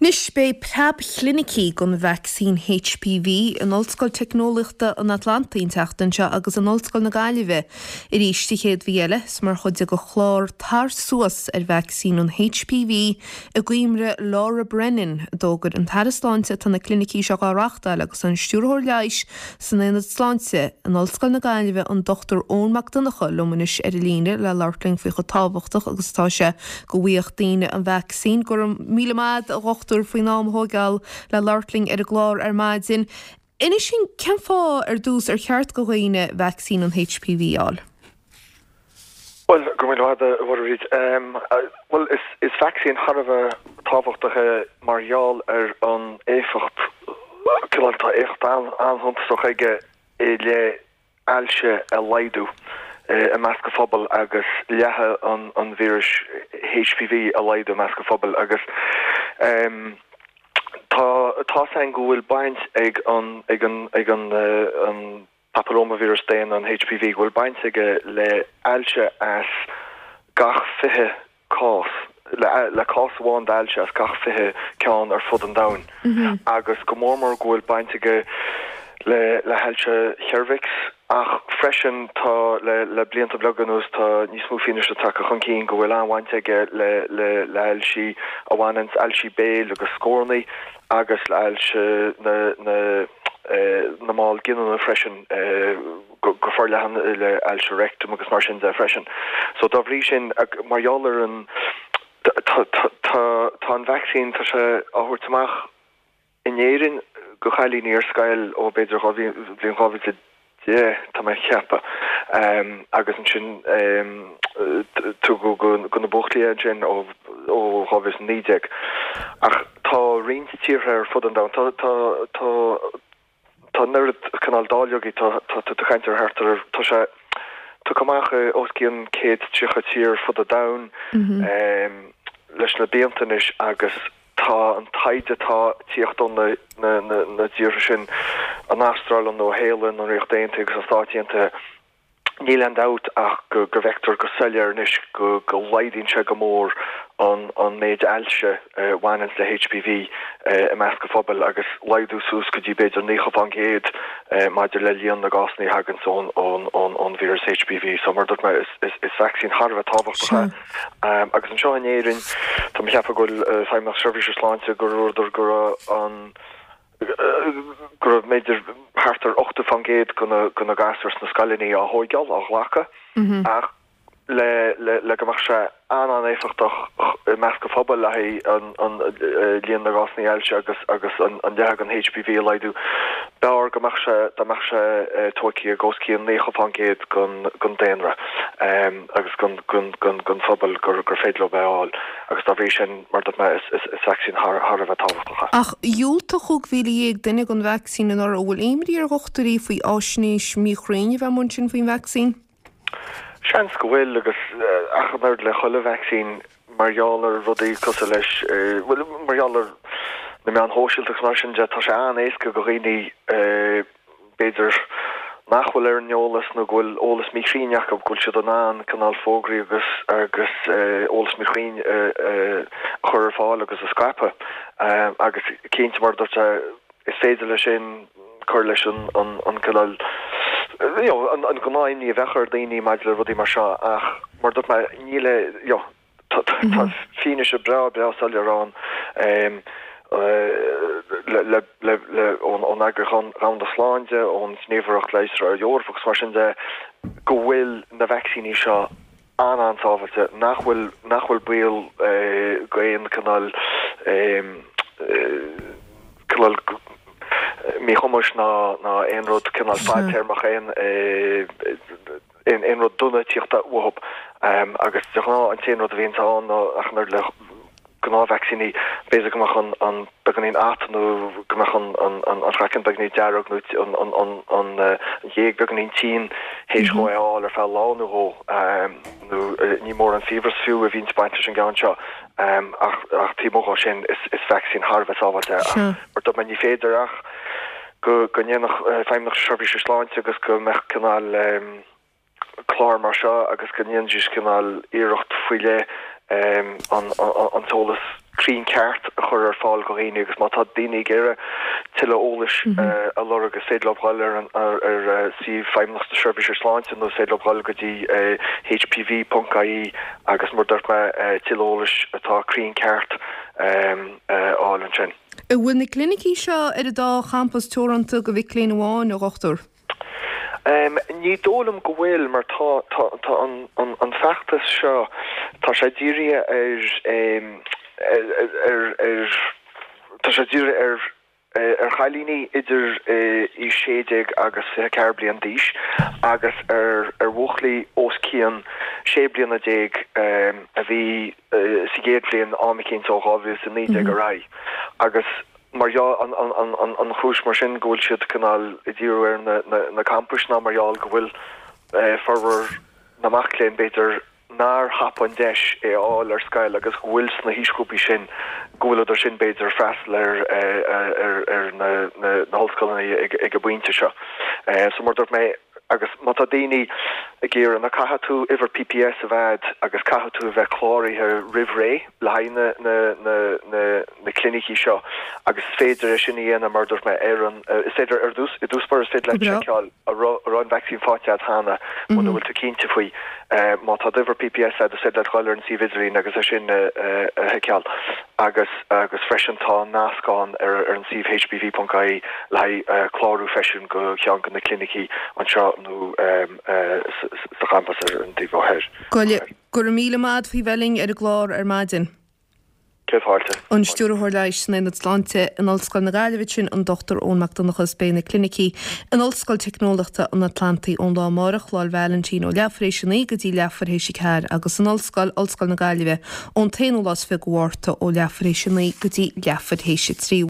Anois beidh preab-chlinicí don vacsaín HPV in Ollscoil Teicneolaíochta an Atlantaigh an tseachtain seo agus in Ollscoil na Gaillimhe arís an chéad mhí eile. Is mar chuid de chlár Tar Suas ar vacsaín an HPV i gcuimhne Laura Brennan a d'fhógair an tAire Sláinte atá na clinicí seo á reáchtáil agus an Stiúrthóir Leighis san Aonad Sláinte in Ollscoil na Gaillimhe an Dr Eoin Mac Donncha liom anois ar an líne le labhairt linn faoi chomh tábhachtach agus atá sé go bhfaigheadh daoine an vacsaín. Go raibh míle maith agat a dhochtúir faoin am a thóigeáil le labhairt linn ar an gclár ar maidin. Inis dúinn cén fáth ar dtús ar cheart go dhaoine vacsaín an HPV a fháil? Bhuel, go raibh míle maith agat, a Mhuireadh. Bhuel, is vacsaín thar a bheith tábhachtach é mar gheall ar an éifeacht, cineál, tá éifeacht an-shuntasach aige i leith ailse a laghdú i measc an phobail agus leathadh an víris HPV a laghdú i measc an phobail agus tá tá's againn go bhfuil baint ag an ag an ag an an papillómaivíreas daonna, an HPV, go bhfuil baint aige le ailse as gach 20 cás, le cás amháin d'ailse as gach 20 ceann ar fud an domhain, agus go mór mór go bhfuil baint aige le le hailse cheirbheacs, ach freisin tá le le blianta beaga anuas tá níos mó fianaise tagtha chun cinn go bhfuil an-bhaint aige le le le hailsí a bhaineanns ailsí béil agus scornaí agus le hailse na na na mball giniúna freisin. go forleathan le ailse rectum agus mar sin de freisin. So dá bhrí sin, mar gheall ar an, tá, tá an vacsaín, tá sé á thabhairt amach in Éirinn go chailíní ar scoil ó b'fhéidir bhliain 2010, tá mé ag ceapadh, agus ansin tugadh go na buachaillí é ansin ó 2019. Ach tá roinnt tíortha ar fud an domhain, tá, tá, tá, Tá an oiread cineál dáileogaí, tá tú ag caint ar thart ar, tá sé tugtha amach i os cionn 130 tír ar fud an domhain leis na blianta anois agus tá an taighde atá ag tíocht ó na tíortha sin, an Astráil, an Nua-Shéalainn, an Ríocht Aontaithe agus na Stáit Aontaithe, Níl aon dabht ach go bhfeictear go soiléir anois go laghdaíonn sé go mór an méid ailse a bhaineanns le HPV i measc an phobail agus laghdú suas go dtí b'fhéidir 90% maidir le líon na gcásanna a thaganns ón víreas HPV. So mar a dúirt mé is vacsaín thar a bheith tábhachtach é. Agus anseo in Éirinn tá mé ag ceapadh go bhfuil Feidhmeannacht Seirbhíse Sláinte gur dúradar go raibh an go raibh b'fhéidir thart ar 80% de na gasúir sna scoileanna á thóigeáil, á ghlacadh, ach le le go mbeadh sé an-an-éifeachtach i measc an phobail le haghaidh an líon na gcásanna ailse agus agus an leathadh den HPV a laghdú, b'fhearr go mbeadh sé dá mbeadh sé tóigthe ag os cionn 90% den daonra agus den phobal gur féidir leo é a fháil. Agus dá bhrí sin, mar a dúirt mé, is vacsaín thar a bheith tábhachtach é. Ach dhiúltaigh 15,000 duine don vacsaín anuraidh. An bhfuil imní ar dhochtúirí faoi fháisnéis míchruinn a bheith amuigh ansin faoin vacsaín? Seans go bhfuil, agus ach an oiread le chuile vacsaín, mar gheall ar rudaí cosúil leis, bhuel, mar gheall ar na meáin shóisialta agus mar sin de, tá sé an-éasca do dhaoine, b'fhéidir, nach bhfuil ar an eolas nó go bhfuil eolas míchruinn acu, go bhfuil siad in ann cineál fógraí agus agus eolas míchruinn a chur ar fáil agus a scaipeadh. Agus cinnte, mar a dúirt mé, is féidir leis sin cur leis an an cineál, you know, an gnáth-imní a bheadh ar dhaoine maidir le rudaí mar seo ach mar a dúirt mé, níl, you know, Tá fianaise breá breá soiléir ann ón Eagraíocht Dhomhanda Sláinte, ón Ghníomhaireacht Leigheasra Eorpach agus mar sin de go bhfuil na vacsaíní seo an-an-sábháilte, nach bhfuil nach bhfuil baol go aon cineál cineál míchumais ná aon rud cineál fadtéarmach aon aon rud dona tíocht uathu agus de ghnáth an t-aon rud a bhíonns ann ná ach an oiread le gnáthvacsaíní, b'fhéidir go mbeadh an an beagáinín at nó go mbeadh an an an an craiceann beagáinín dearg nó an an an an an ghéag beagáinín tinn théis dhó é a fháil ar feadh lá nó dhó nó ní mór an fiabhras fiú a bhíonns ag baint leis an gceann seo ach ach taobh amuigh dhó sin is is vacsaín thar a bheith sábháilte é ach mar a dúirt mé ní féidir ach go ndéanfadh Feidhmeannacht na Seirbhíse Sláinte agus go mbeadh cineál clár mar seo agus go ndéanfaidís cineál iarracht faoi leith an t-eolas. cruinn ceart a chur ar fáil do dhaoine agus má tá daoine ag iarraidh tuilleadh eolais a lorg is féidir leo dhul ar an ar suíomh Feidhmeannacht na Seirbhíse Sláinte nó is féidir leo dhul go dtí hpv.ie agus mar dúirt mé tuilleadh eolais atá cruinn ceart a fháil ansin. An bhfuil na clinicí seo ar an dá champas teoranta do mhic léinn amháin, a Dhochtúir? Ní dóigh liom go bhfuil mar tá tá tá an an an feachtas seo tá sé dírithe ar ar ar tá sé dírithe ar ar chailíní idir aois 16 agus 24 bliain d'aois agus ar ar bhuachaillí os cionn 16 bliana a bhí sa gcéad bhliain am eicínt ó 2019 ar aghaidh agus mar gheall an chúis mar sin go bhfuil siad cineál ag díriú ar na campais ná mar gheall go bhfuil formhór na mac léinn b'fhéidir nár thapaigh an deis é a fháil ar scoil agus go bhfuil sna haoisghrúpaí sin go bhfuileadar sin b'fhéidir ag freastal ar ar na hollscoileanna ag an bpointe seo. So mar dúirt mé agus má tá daoine ag iarraidh ná caithfidh tú uimhir PPS a bheith a'd agus caithfidh tú a bheith cláraithe roimh ré le haghaidh na na na na na clinicí seo agus is féidir é sin a dhéanamh mar a dúirt mé ar an is féidir ar dtús i dtús báire is féidir leat seiceáil an raibh an raibh an vacsaín faighte agat cheana muna bhfuil tú cinnte faoi. Má tá d'uimhir PPS agat is féidir leat dhul ar an suíomh idirlín agus é sin a sheiceáil agus agus freisin tá nasc ann ar ar an suíomh hpv.ie le haghaidh clárú freisin go cheann de na clinicí anseo nó sa champas ar an taobh ó thoir. Go raibh míle maith agat faoi bheith linn ar an gclár ar maidin. Céad fáilte. An Stiúrthóir Leighis san Aonad Sláinte in Ollscoil na Gaillimhe sin an Dr Eoin Mac Donncha is beidh na clinicí in Ollscoil Teicneolaíochta an Atlantaigh ón lá amárach, Lá 'le Vailintín, ó leathuair théis a 9 go dtí leathuair théis a 4 agus in Ollscoil Ollscoil na Gaillimhe ón t-aonú lá is 20 de Mhárta ó leathuair théis a 9 go dtí leathuair théis a 3.